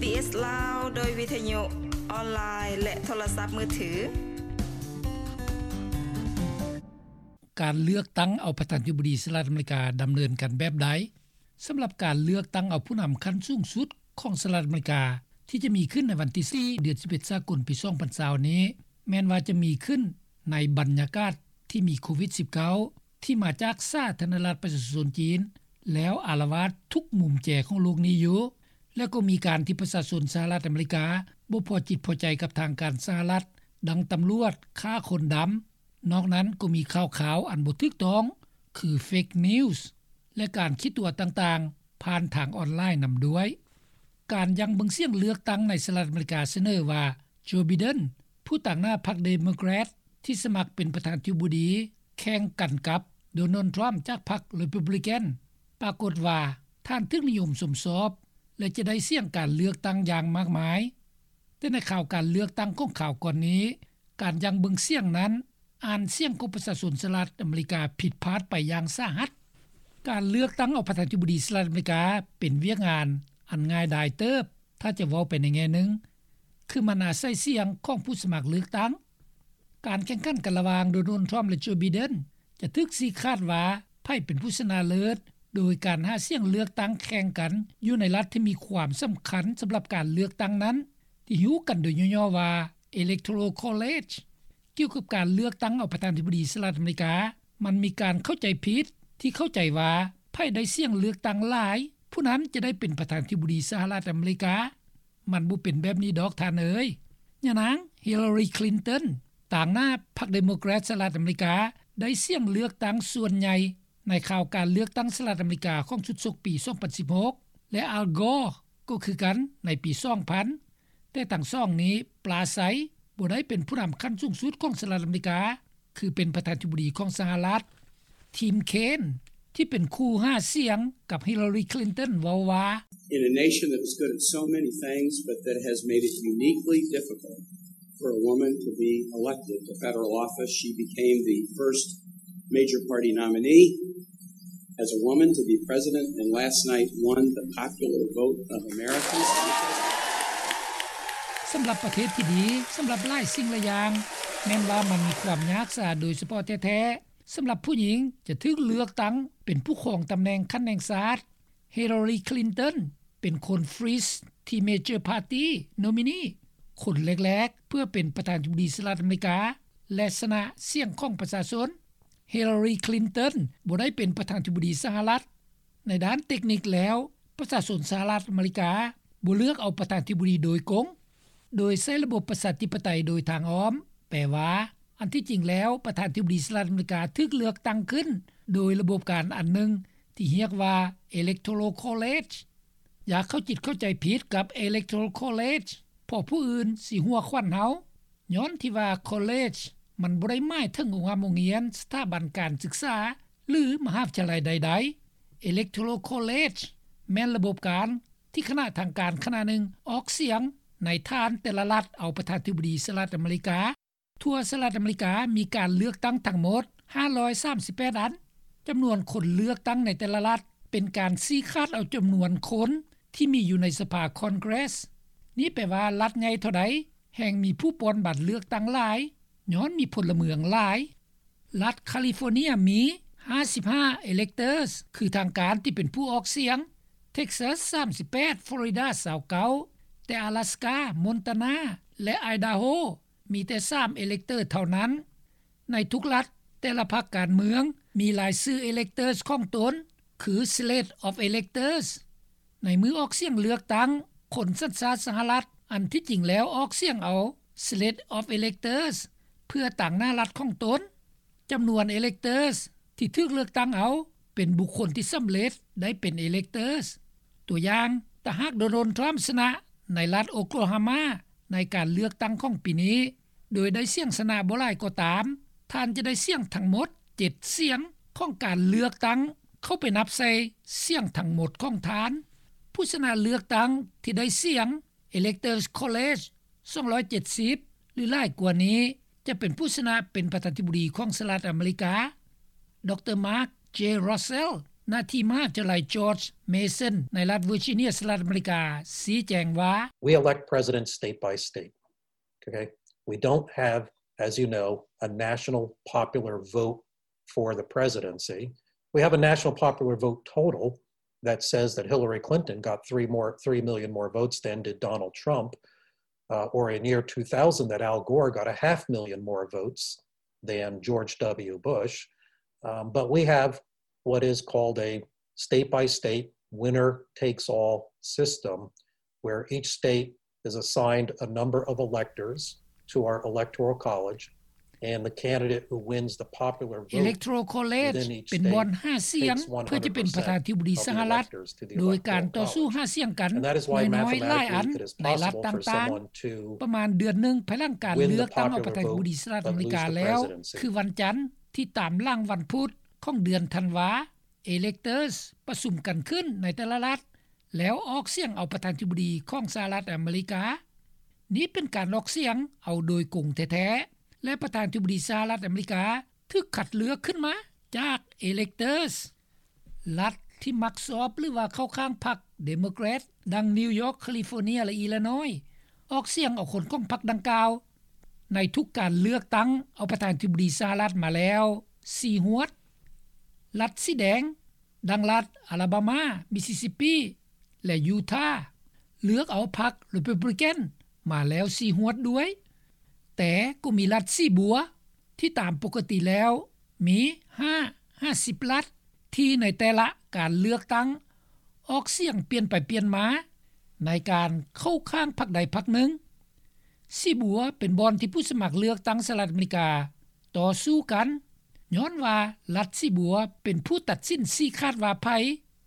ບີເອສ ລາວ ໂດຍວິທະຍຸ ອອນລາຍ ແລະ ໂທລະສັບມືຖື. ການເລືອກຕັ້ງເອົາປະທານາທິບໍດີສະຫະລັດອາເມລິກາດຳເນີນກັນແບບໃດ? ສຳລັບການເລືອກຕັ້ງເອົາຜູ້ນຳຂັ້ນສູງສຸດຂອງສະຫະລັດອາເມລິກາ ທີ່ຈະມີຂຶ້ນໃນວັນທີສີ່ ເດືອນສິບເອັດ ສາກົນ ປີສອງພັນຊາວນີ້ ແມ່ນວ່າຈະມີຂຶ້ນໃນບັນຍາກາດທີ່ມີໂຄວິດສິບເກົ້າ ທີ່ມາຈາກສາທາລະນະລັດປະຊາຊົນຈີນ ແລ້ວອາລະວາດທຸກມຸມແຈຂອງໂລກນີ້ຢູ່ ແລະ ກໍມີການທີ່ປະຊາຊົນສະຫະລັດອາເມລິກາບໍ່ພໍຈິດພໍໃຈກັບທາງການສະຫະລັດ ດັ່ງຕຳຫຼວດຂ້າຄົນດຳ. ນອກນັ້ນກໍມີຂ່າວຄາວອັນບໍ່ຖືກຕ້ອງ ຄື ເຟກນິວສ໌ ແລະ ການຂີ້ຕົວະຕ່າງໆ ຜ່ານທາງອອນລາຍນຳດ້ວຍ. ການຢັ້ງເບິ່ງສຽງເລືອກຕັ້ງໃນສະຫະລັດອາເມລິກາສະເໜີວ່າ ໂຈ ໄບເດັນ ຜູ້ຕາງໜ້າພັກເດໂມແຄຣດ ທີ່ສະໝັກເປັນປະທານາທິບໍດີ ແຂ່ງກັນກັບ ໂດນັລ ທຣຳ ຈາກພັກ ຣີພັບບລິກັນ ປາກົດວ່າທ່ານຖືກນິຍົມຊົມຊອບ ແລະ ຈະໄດ້ສຽງການເລືອກຕັ້ງຢ່າງມາກມາຍ. ແຕ່ໃນຂ່າວການເລືອກຕັ້ງຂອງຄາວກ່ອນນີ້ ການຢັ້ງເບິ່ງສຽງນັ້ນ ອ່ານສຽງຂອງປະຊາຊົນສະຫະລັດອາເມລິກາຜິດພາດໄປຢ່າງສາຫັດ. ການເລືອກຕັ້ງເອົາປະທານາທິບໍດີສະຫະລັດອາເມລິກາ ເປັນວຽກງານອັນງ່າຍດາຍເຕີບ ຖ້າຈະເວົ້າໄປໃນແງ່ໜຶ່ງ ຄືມັນອາໄສສຽງຂອງຜູ້ສະໝັກເລືອກຕັ້ງ. ການແຂ່ງຂັນກັນລະຫວ່າງ ໂດນັລ ທຣຳ ແລະ ໂຈ ໄບເດັນ ຈະຖືກຊີ້ຂາດວ່າໃຜເປັນຜູ້ຊະນະເລີດ ໂດຍການຫາສຽງເລືອກຕັ້ງແຂ່ງກັນຢູ່ໃນລັດທີ່ມີຄວາມສຳຄັນສຳລັບການເລືອກຕັ້ງນັ້ນ ທີ່ຮູ້ກັນໂດຍຫຍໍ້ໆວ່າ Electoral College. ກ່ຽວກັບການເລືອກຕັ້ງເອົາປະທານາທິບໍດີສະຫະລັດອາເມລິກາ ມັນມີການເຂົ້າໃຈຜິດທີ່ເຂົ້າໃຈວ່າ ໃຜໄດ້ສຽງເລືອກຕັ້ງຫຼາຍ ຜູ້ນັ້ນຈະໄດ້ເປັນປະທານາທິບໍດີສະຫະລັດອາເມລິກາ. ມັນບໍ່ເປັນແບບນີ້ດອກທ່ານເອີຍ. ຍານາງ ຮິລລາຣີ ຄລິນຕັນ ຕາງໜ້າພັກເດໂມແຄຣດສະຫະລັດອາເມລິກາ ໄດ້ສຽງເລືອກຕັ້ງສ່ວນໃຫຍ່ໃນຂ່າວການເລືອກຕັ້ງສະຫະລັດອາເມລິກາຂອງຊຸດສົກປີສອງພັນສິບຫົກ ແລະ ອາລ ກໍ ກໍຄືກັນໃນປີສອງພັນ. ແຕ່ທັງສອງນີ້ປລາໄຊ ບໍ່ໄດ້ເປັນຜູ້ນຳຂັ້ນສູງສຸດຂອງສະຫະລັດອາເມລິກາ ຄືເປັນປະທານາທິບໍດີຂອງສະຫະລັດ. ທີມ ເຄນ ທີ່ເປັນຄູ່ຫາສຽງກັບ ຮິລລາຣີ ຄລິນຕັນ ເວົ້າວ່າ In a nation that is good at so many things, but that has made it uniquely difficult for a woman to be elected to federal office, she became the first major party nominee as a woman to be president, and last night won the popular vote of Americans. ສຳລັບປະເທດທີ່ດີ ສຳລັບຫຼາຍສິ່ງຫຼາຍຢ່າງ ແມ່ນວ່າມັນມີຄວາມຍາກຊາໂດຍສະເພາະແທ້ໆ ສຳລັບຜູ້ຍິງຈະຖືກເລືອກຕັ້ງເປັນຜູ້ຄອງຕຳແໜ່ງຂັ້ນແຫ່ງຊາດ. ຮິລລາຣີ ຄລິນຕັນ ເປັນຄົນ First Teenager Party Nominee ຄົນແລກໆ ເພື່ອເປັນປະທານາທິບໍດີສະຫະລັດອາເມລິກາ ແລະ ຊະນະສຽງຂອງປະຊາຊົນ. ຮິລລາຣີ ຄລິນຕັນ ບໍ່ໄດ້ເປັນປະທານາທິບໍດີສະຫະລັດ. ໃນດ້ານເຕັກນິກແລ້ວ ປະຊາຊົນສະຫະລັດອາເມລິກາບໍ່ເລືອກເອົາປະທານາທິບໍດີໂດຍກົງ ໂດຍໃຊ້ລະບົບປະຊາທິປະໄຕໂດຍທາງອ້ອມ, ແປວ່າ ອັນທີ່ຈິງແລ້ວ ປະທານາທິບໍດີສະຫະລັດອາເມລິກາຖືກເລືອກຕັ້ງຂຶ້ນໂດຍລະບົບການອັນໜຶ່ງທີ່ຮຽກວ່າ Electoral College. ຢ່າເຂົ້າຈິດເຂົ້າໃຈຜິດກັບ Electoral College ເພາະຜູ້ອື່ນຊິຫົວຂວັນເຮົາ. ຍ້ອນທີ່ວ່າ College ມັນບໍ່ໄດ້ໝາຍເຖິງໂຮງຮ່ຳໂຮງຮຽນ, ສະຖາບັນການສຶກສາ ຫຼື ມະຫາວິທະຍາໄລໃດໆ. Electoral College ແມ່ນລະບົບການທີ່ຄະນະທາງການຄະນະໜຶ່ງອອກສຽງໃນຖານແຕ່ລະລັດເອົາປະທານາທິບໍດີສະຫະລັດອາເມລິກາ. ທົ່ວສະຫະລັດອາເມລິກາມີການເລືອກຕັ້ງທັງໝົດຫ້າຮ້ອຍສາມສິບແປດອັນ. ຈຳນວນຄົນເລືອກຕັ້ງໃນແຕ່ລະລັດເປັນການຊີ້ຂາດເອົາຈຳນວນຄົນທີ່ມີຢູ່ໃນສະພາ Congress. ນີ້ແປວ່າລັດໃຫຍ່ເທົ່າໃດ ແຮ່ງມີຜູ້ປ່ອນບັດເລືອກຕັ້ງຫຼາຍ ຍ້ອນມີພົນລະເມືອງຫຼາຍ. ລັດຄາລິຟໍເນຍມີຫ້າສິບຫ້າ electors ຄືທາງການທີ່ເປັນຜູ້ອອກສຽງ, Texas ສາມສິບແປດ, Florida ຊາວເກົ້າ, ແຕ່ Alaska, Montana ແລະ Idaho ມີແຕ່ສາມ elector ເທົ່ານັ້ນ. ໃນທຸກລັດ ແຕ່ລະພັກການເມືອງມີລາຍຊື່ electors ຂອງຕົນ ຄື Slate of Electors. ໃນມື້ອອກສຽງເລືອກຕັ້ງ, ຄົນສັນຊາດສະຫະລັດ ອັນທີ່ຈິງແລ້ວອອກສຽງເອົາ Slate of Electors ເພື່ອຕາງໜ້າລັດຂອງຕົນ. ຈຳນວນ electors ທີ່ຖືກເລືອກຕັ້ງເອົາ ເປັນບຸກຄົນທີ່ສຳເລັດໄດ້ເປັນ electors. ຕົວຢ່າງ, ຖ້າຫາກ Donald Trump ຊະນະໃນລັດ Oklahoma ໃນການເລືອກຕັ້ງຂອງປີນີ້ ໂດຍໄດ້ສຽງຊະນະບໍ່ຫຼາຍກໍຕາມ, ທ່ານຈະໄດ້ສຽງທັງໝົດເຈັດສຽງຂອງການເລືອກຕັ້ງ ເຂົ້າໄປນັບໃສ່ສຽງທັງໝົດຂອງທ່ານ. ຜູ້ຊະນະເລືອກຕັ້ງທີ່ໄດ້ສຽງ Electors College ສອງຮ້ອຍເຈັດສິບ ຫຼື ຫຼາຍກວ່ານີ້ ຈະເປັນຜູ້ຊະນະເປັນປະທານາທິບໍດີຂອງສະຫະລັດອາເມລິກາ. ດຣ Mark J Russell ນະທີ່ມະຫາວິທະຍາໄລ George Mason ໃນລັດ Virginia ສະຫະລັດອາເມລິກາ ຊີ້ແຈງວ່າ: We elect presidents state by state. Okay? We don't have, as you know, a national popular vote for the presidency. We have a national popular vote total that says that Hillary Clinton got three more, three million more votes than did Donald Trump, uh, or in year two thousand that Al Gore got a half million more votes than George W. Bush. Um, but we have what is called a state by state, winner takes all system, where each state is assigned a number of electors to our electoral college, and the candidate who wins the popular vote within each state takes one hundred percent of the electors to the electoral college. And that is why mathematically it is possible for someone to win the popular vote, but the electors to the electoral college. ເອເລັກໂທຣອລເຄລເຈ ເປັນບ່ອນຫາສຽງ ເພື່ອຈະເປັນປະທານທິບໍດີສະຫະລັດ ໂດຍການຕໍ່ສູ້ຫາສຽງກັນ ໜ້ອຍໆຫຼາຍອັນ ໃນລັດຕ່າງໆ. ປະມານເດືອນໜຶ່ງພາຍຫຼັງການເລືອກຕັ້ງເອົາປະທານທິບໍດີສະຫະລັດອາເມລິກາແລ້ວ ຄືວັນຈັນທີ່ຕາມຫຼັງວັນພຸດຂອງເດືອນທັນວາ electors ປະຊຸມກັນຂຶ້ນໃນແຕ່ລະລັດ ແລ້ວອອກສຽງເອົາປະທານທິບໍດີຂອງສະຫະລັດອາເມລິກາ. ນີ້ເປັນການອອກສຽງເອົາໂດຍກົງແທ້ໆ ແລະ ປະທານທິບໍດີສະຫະລັດອາເມລິກາຖືກຄັດເລືອກຂຶ້ນມາຈາກ electors. ລັດທີ່ມັກຊອບ ຫຼືວ່າເຂົ້າຂ້າງພັກ Democrat ດັ່ງ New York, California ແລະ Illinois ອອກສຽງເອົາຄົນຂອງພັກດັ່ງກ່າວ ໃນທຸກການເລືອກຕັ້ງເອົາປະທານທິບໍດີສະຫະລັດມາແລ້ວສີ່ຫວດ. ລັດສີແດງ ດັ່ງລັດ Alabama, Mississippi ແລະ Utah ເລືອກເອົາພັກ Republican ມາແລ້ວສີ່ຫວດດ້ວຍ, ແຕ່ກໍມີລັດສີບົວ ທີ່ຕາມປົກກະຕິແລ້ວມີຫ້າຫາສິບລັດ ທີ່ໃນແຕ່ລະການເລືອກຕັ້ງອອກສຽງປ່ຽນໄປປ່ຽນມາ ໃນການເຂົ້າຂ້າງພັກໃດພັກໜຶ່ງ. ສີບົວເປັນບ່ອນທີ່ຜູ້ສະໝັກເລືອກຕັ້ງສະຫະລັດອາເມລິກາຕໍ່ສູ້ກັນ ຍ້ອນວ່າລັດສີບົວເປັນຜູ້ຕັດສິນຊີ້ຂາດວ່າໃຜ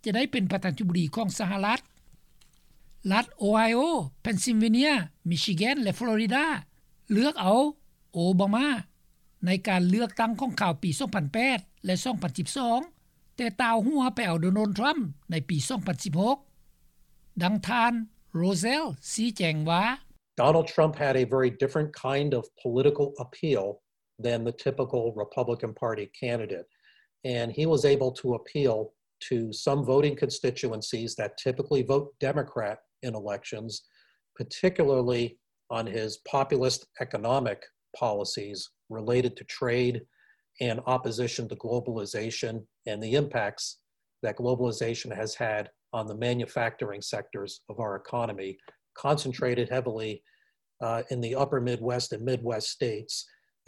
ຈະໄດ້ເປັນປະທານທິບໍດີຂອງສະຫະລັດ. ລັດໂອໄຮໂອ, ເພັນຊິລເວເນຍ, ມິຊິແກນ ແລະ ຟລໍຣິດາ ເລືອກເອົາໂອບາມາ ໃນການເລືອກຕັ້ງຂອງຄາວປີສອງພັນແປດ ແລະ ສອງພັນສິບສອງ ແຕ່ຕ່າວຫົວໄປເອົາໂດນັລ ທຣຳ ໃນປີສອງພັນສິບຫົກ. ດັ່ງທ່ານ ໂຣເຊວລ ຊີ້ແຈງວ່າ: Donald Trump had a very different kind of political appeal than the typical Republican Party candidate, and he was able to appeal to some voting constituencies that typically vote Democrat in elections, particularly on his populist economic policies related to trade and opposition to globalization and the impacts that globalization has had on the manufacturing sectors of our economy, concentrated heavily, uh, in the upper Midwest and Midwest states.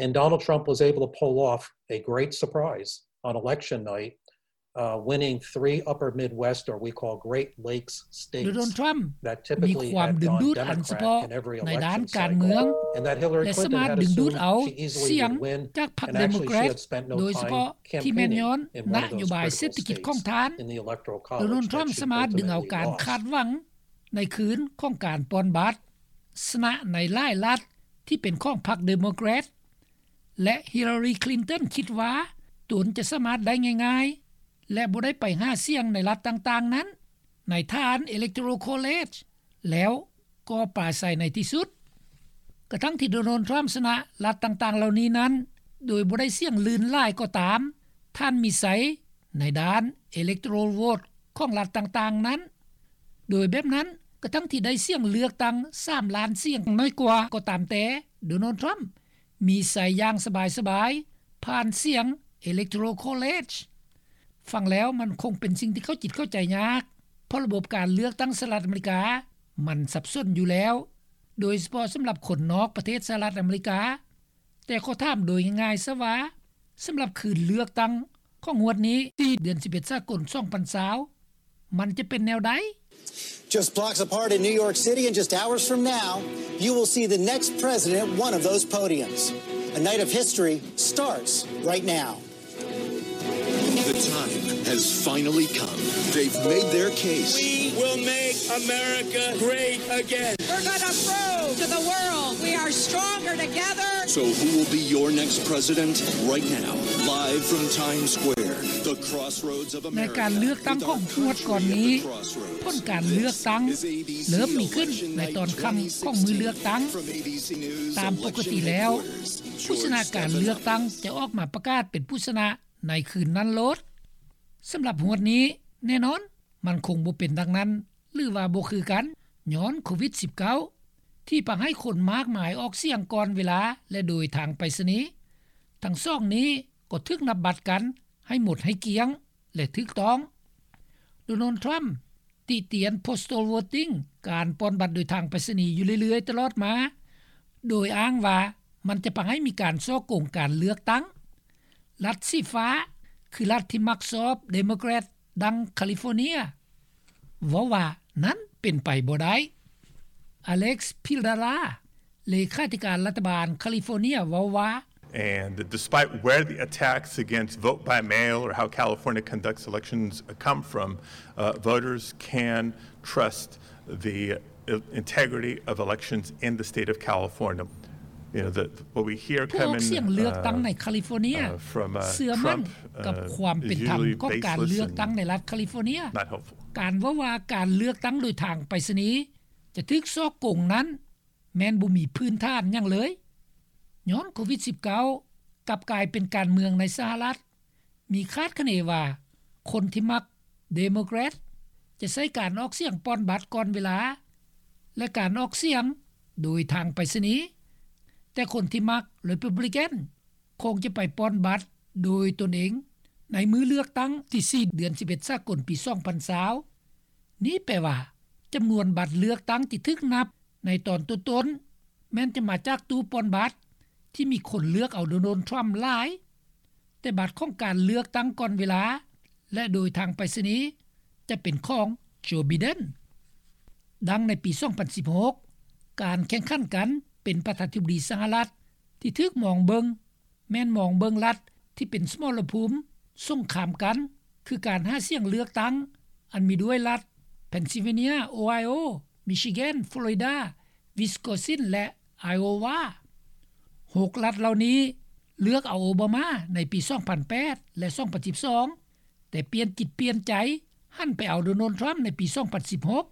And Donald Trump was able to pull off a great surprise on election night, uh, winning three upper Midwest, or we call Great Lakes states, ໂດນັລ ທຣຳ that typically had gone Democrat in every election cycle, and that Hillary Clinton had assumed she easily would win, and actually she had spent no time campaigning in one of those critical states in the electoral college that she ultimately lost. ໂດນັລ ທຣຳສາມາດດຶງເອົາການຄາດຫວັງໃນຄືນຂອງການປ່ອນບັດ ຊະນະໃນຫຼາຍລັດທີ່ເປັນຂອງພັກເດໂມແຄຣດ ແລະ ຮິລລາຣີ ຄລິນຕັນ ຄິດວ່າຕົນຈະສາມາດໄດ້ງ່າຍໆ ແລະ ບໍ່ໄດ້ໄປຫາສຽງໃນລັດຕ່າງໆນັ້ນ ໃນຖານ electoral college ແລ້ວກໍປາໄສໃນທີ່ສຸດ. ກະທັ່ງທີ່ໂດນັລ ທຣຳ ຊະນະລັດຕ່າງໆເຫຼົ່ານີ້ນັ້ນ ໂດຍບໍ່ໄດ້ສຽງລື່ນຫຼາຍກໍຕາມ, ທ່ານມີໄຊໃນດ້ານ electoral vote ຂອງລັດຕ່າງໆນັ້ນ. ໂດຍແບບນັ້ນ, ກະທັ່ງທີ່ໄດ້ສຽງເລືອກຕັ້ງສາມລ້ານສຽງນ້ອຍກວ່າກໍຕາມແຕ່, ໂດນັລ ທຣຳ ມີໄຊຢ່າງສະບາຍໆ ຜ່ານສຽງ electoral college. ຟັງແລ້ວມັນຄົງເປັນສິ່ງທີ່ເຂົ້າຈິດເຂົ້າໃຈຍາກ, ເພາະລະບົບການເລືອກຕັ້ງສະຫະລັດອາເມລິກາມັນສັບສົນຢູ່ແລ້ວ, ໂດຍສະເພາະສຳລັບຄົນນອກປະເທດສະຫະລັດອາເມລິກາ. ແຕ່ຂໍຖາມໂດຍງ່າຍໆຊະວ່າ, ສຳລັບຄືນເລືອກຕັ້ງຂອງງວດນີ້ ສີ່ເດືອນສິບເອັດສາກົນສອງພັນຊາວ ມັນຈະເປັນແນວໃດ? Just blocks apart in New York City, and just hours from now, you will see the next president at one of those podiums. A night of history starts right now. The time has finally come. They've made their case. We will make America great again. We're gonna prove to the world we are stronger together. So who will be your next president? Right now, live from Times Square, the crossroads of America. ໃນການເລືອກຕັ້ງຂອງງວດກ່ອນນີ້, ຜົນການເລືອກຕັ້ງເລີ່ມມີຂຶ້ນໃນຕອນຄ່ຳຂອງມື້ເລືອກຕັ້ງ. ຕາມປົກກະຕິແລ້ວ, ຜູ້ຊະນະການເລືອກຕັ້ງຈະອອກມາປະກາດເປັນຜູ້ຊະນະ ໃນຄືນນັ້ນໂລດ. ສຳລັບງວດນີ້ ແນ່ນອນ ມັນຄົງບໍ່ເປັນດັ່ງນັ້ນ ຫຼືວ່າບໍ່ຄືກັນ ຍ້ອນໂຄວິດ-19 ທີ່ພາໃຫ້ຄົນມາກມາຍອອກສຽງກ່ອນເວລາ ແລະ ໂດຍທາງໄປສະນີ. ທັງສອງນີ້ກໍຖືກນັບບັດກັນໃຫ້ໝົດໃຫ້ກ້ຽງ ແລະ ຖືກຕ້ອງ. ໂດນັລ ທຣຳ ຕິຕຽນ postal voting ການປ່ອນບັດໂດຍທາງໄປສະນີຢູ່ເລື້ອຍໆຕະຫຼອດມາ ໂດຍອ້າງວ່າມັນຈະພາໃຫ້ມີການສໍ້ໂກງການເລືອກຕັ້ງ. ລັດສີຟ້າ ຄືລັດທີ່ມັກຊອບ Democrat ດັ່ງ California ເວົ້າວ່ານັ້ນເປັນໄປບໍ່ໄດ້. Alex Padilla ເລຂາທິການລັດຖະບານ California ເວົ້າວ່າ And despite where the attacks against vote by mail or how California conducts elections come from, uh, voters can trust the integrity of elections in the state of California. You know, the, what we hear ຜູ້ອອກສຽງເລືອກຕັ້ງໃນ California ເຊື່ອໝັ້ນກັບຄວາມເປັນທຳຂອງການເລືອກຕັ້ງໃນລັດ California. ການເວົ້າວ່າການເລືອກຕັ້ງໂດຍທາງໄປສະນີຈະຖືກສໍ້ໂກງນັ້ນ ແມ່ນບໍ່ມີພື້ນຖານຫຍັງເລີຍ ຍ້ອນໂຄວິດ-19 ກັບກາຍເປັນການເມືອງໃນສະຫະລັດ. ມີຄາດຄະເນວ່າຄົນທີ່ມັກ Democrat ຈະໃຊ້ການອອກສຽງປ່ອນບັດກ່ອນເວລາ ແລະ ການອອກສຽງໂດຍທາງໄປສະນີ, ແຕ່ຄົນທີ່ມັກ Republican ຄົງຈະໄປປ່ອນບັດໂດຍຕົນເອງໃນມື້ເລືອກຕັ້ງທີສີ່ ເດືອນສິບເອັດ ສາກົນ ປີສອງພັນຊາວ. ນີ້ແປວ່າຈຳນວນບັດເລືອກຕັ້ງທີ່ຖືກນັບໃນຕອນຕົ້ນໆ ແມ່ນຈະມາຈາກຕູ້ປ່ອນບັດທີ່ມີຄົນເລືອກເອົາໂດນັລ ທຣຳ ຫຼາຍ, ແຕ່ບັດຂອງການເລືອກຕັ້ງກ່ອນເວລາ ແລະ ໂດຍທາງໄປສະນີຈະເປັນຂອງ Joe Biden. ດັ່ງໃນປີສອງພັນສິບຫົກ ການແຂ່ງຂັນກັນເປັນປະທານາທິບໍດີສະຫະລັດທີ່ຖືກມອງເບິ່ງ ແມ່ນມອງເບິ່ງລັດທີ່ເປັນສະໝໍລະພູມສົງຄາມກັນ ຄືການຫາສຽງເລືອກຕັ້ງ ອັນມີດ້ວຍລັດ Pennsylvania, Ohio, Michigan, Florida, Wisconsin ແລະ Iowa. ຫົກລັດເຫຼົ່ານີ້ເລືອກເອົາໂອບາມາໃນປີສອງພັນແປດ ແລະ ສອງພັນສິບສອງ ແຕ່ປ່ຽນຈິດປ່ຽນໃຈ ຫັນໄປເອົາໂດນັລ ທຣຳ ໃນປີສອງພັນສິບຫົກ.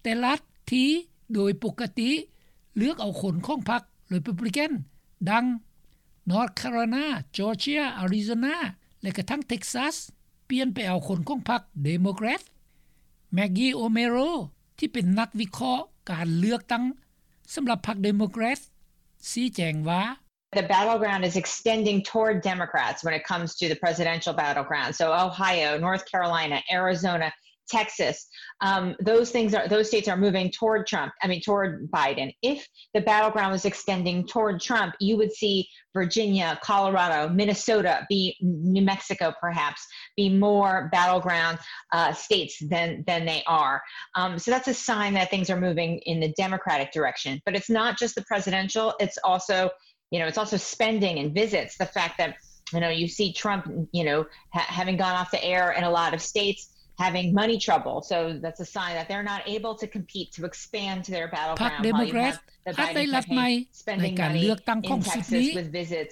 ແຕ່ລັດທີ່ໂດຍປົກກະຕິເລືອກເອົາຄົນຂອງພັກ Republican ດັ່ງ North Carolina, Georgia, Arizona ແລະ ກະທັ່ງ Texas ປ່ຽນໄປເອົາຄົນຂອງພັກ Democrat. Maggie O'Meara ທີ່ເປັນນັກວິເຄາະການເລືອກຕັ້ງສຳລັບພັກ Democrat ຊີ້ແຈງວ່າ The battleground is extending toward Democrats when it comes to the presidential battleground. So Ohio, North Carolina, Arizona, Texas, um, those things are, those states are moving toward Trump, I mean, toward Biden. If the battleground was extending toward Trump, you would see Virginia, Colorado, Minnesota, be, New Mexico perhaps, be more battleground, uh, states than, than they are. Um, so that's a sign that things are moving in the Democratic direction. But it's not just the presidential, it's also you know, it's also spending and visits. The fact that, you know, you see Trump, you know, ha- having gone off the air in a lot of states, having money trouble. So that's a sign that they're not able to compete to expand to their battleground. ພັກ Democrat ອາດໄດ້ລັດໃໝ່ໃນການເລືອກຕັ້ງຂອງຊຸດນີ້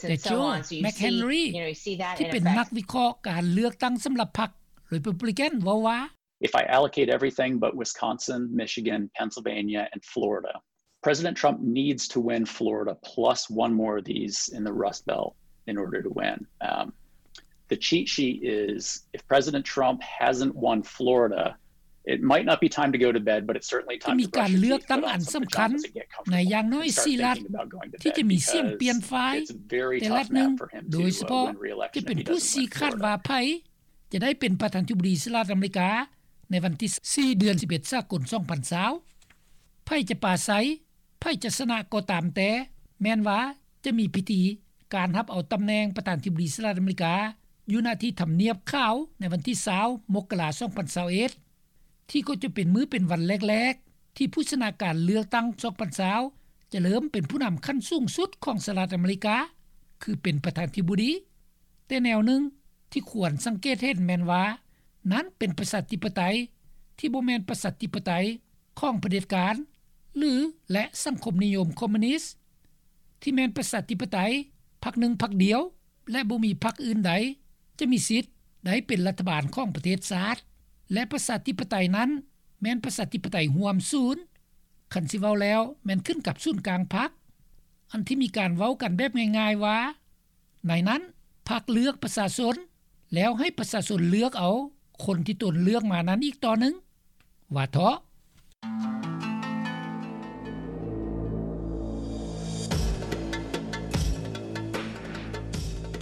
ແຕ່ Joe McHenry ທີ່ເປັນນັກວິເຄາະການເລືອກຕັ້ງສຳລັບພັກ Republican ເວົ້າວ່າ If I allocate everything but Wisconsin, Michigan, Pennsylvania, and Florida, President Trump needs to win Florida plus one more of these in the Rust Belt in order to win. Um, the cheat sheet is if President Trump hasn't won Florida, it might not be time to go to bed, but it's certainly time to brush your teeth, put on some pajamas and get comfortable and start thinking about going to bed because it's very tough now for him to, uh, win re-election if he doesn't win Florida. ຈະໄດ້ເປັນປະທານາທິບໍດີສະຫະລັດອາເມລິກາໃນວັນທີສີ່ ເດືອນສິບເອັດ ສາກົນ ສອງພັນຊາວ. ໃຜຈະປາໄສ, ໃຜຈະຊະນະກໍຕາມແຕ່, ແມ່ນວ່າຈະມີພິທີການຮັບເອົາຕຳແໜ່ງປະທານາທິບໍດີສະຫະລັດອາເມລິກາ ຢູ່ ນະ ທີ່ທຳນຽບຂາວໃນວັນທີຊາວ ມົກກະລາ ສອງພັນຊາວເອັດ ທີ່ກໍຈະເປັນມື້ເປັນວັນແລກໆ ທີ່ຜູ້ຊະນະການເລືອກຕັ້ງ ສອງພັນຊາວ ຈະເລີ່ມເປັນຜູ້ນຳຂັ້ນສູງສຸດຂອງສະຫະລັດອາເມລິກາ ຄືເປັນປະທານາທິບໍດີ. ແຕ່ແນວໜຶ່ງທີ່ຄວນສັງເກດເຫັນແມ່ນວ່າ ນັ້ນເປັນປະຊາທິປະໄຕທີ່ບໍ່ແມ່ນປະຊາທິປະໄຕຂອງຜະເດັດການ ຫຼື ແລະ ສັງຄົມນິຍົມຄອມມູນິດ ທີ່ແມ່ນປະຊາທິປະໄຕພັກໜຶ່ງພັກດຽວ ແລະ ບໍ່ມີພັກອື່ນໃດຈະມີສິດໄດ້ເປັນລັດຖະບານຂອງປະເທດຊາດ ແລະ ປະຊາທິປະໄຕນັ້ນແມ່ນປະຊາທິປະໄຕຮ່ວມສູນ. ຄັນຊິເວົ້າແລ້ວແມ່ນຂຶ້ນກັບສູນກາງພັກ ອັນທີ່ມີການເວົ້າກັນແບບງ່າຍໆວ່າ ໃນນັ້ນພັກເລືອກປະຊາຊົນ ແລ້ວໃຫ້ປະຊາຊົນເລືອກເອົາ ຄົນທີ່ຕົນເລືອກມານັ້ນອີກຕໍ່ໜຶ່ງ. ວ່າເທາະ.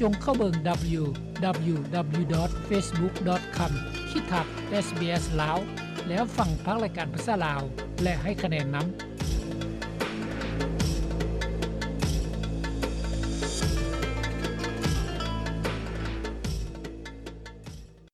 ຈົ່ງເຂົ້າເບິ່ງ www.facebook.com/sbslao ແລ້ວຟັງພາກລາຍການພາສາລາວ ແລະ ໃຫ້ຄະແນນນຳ.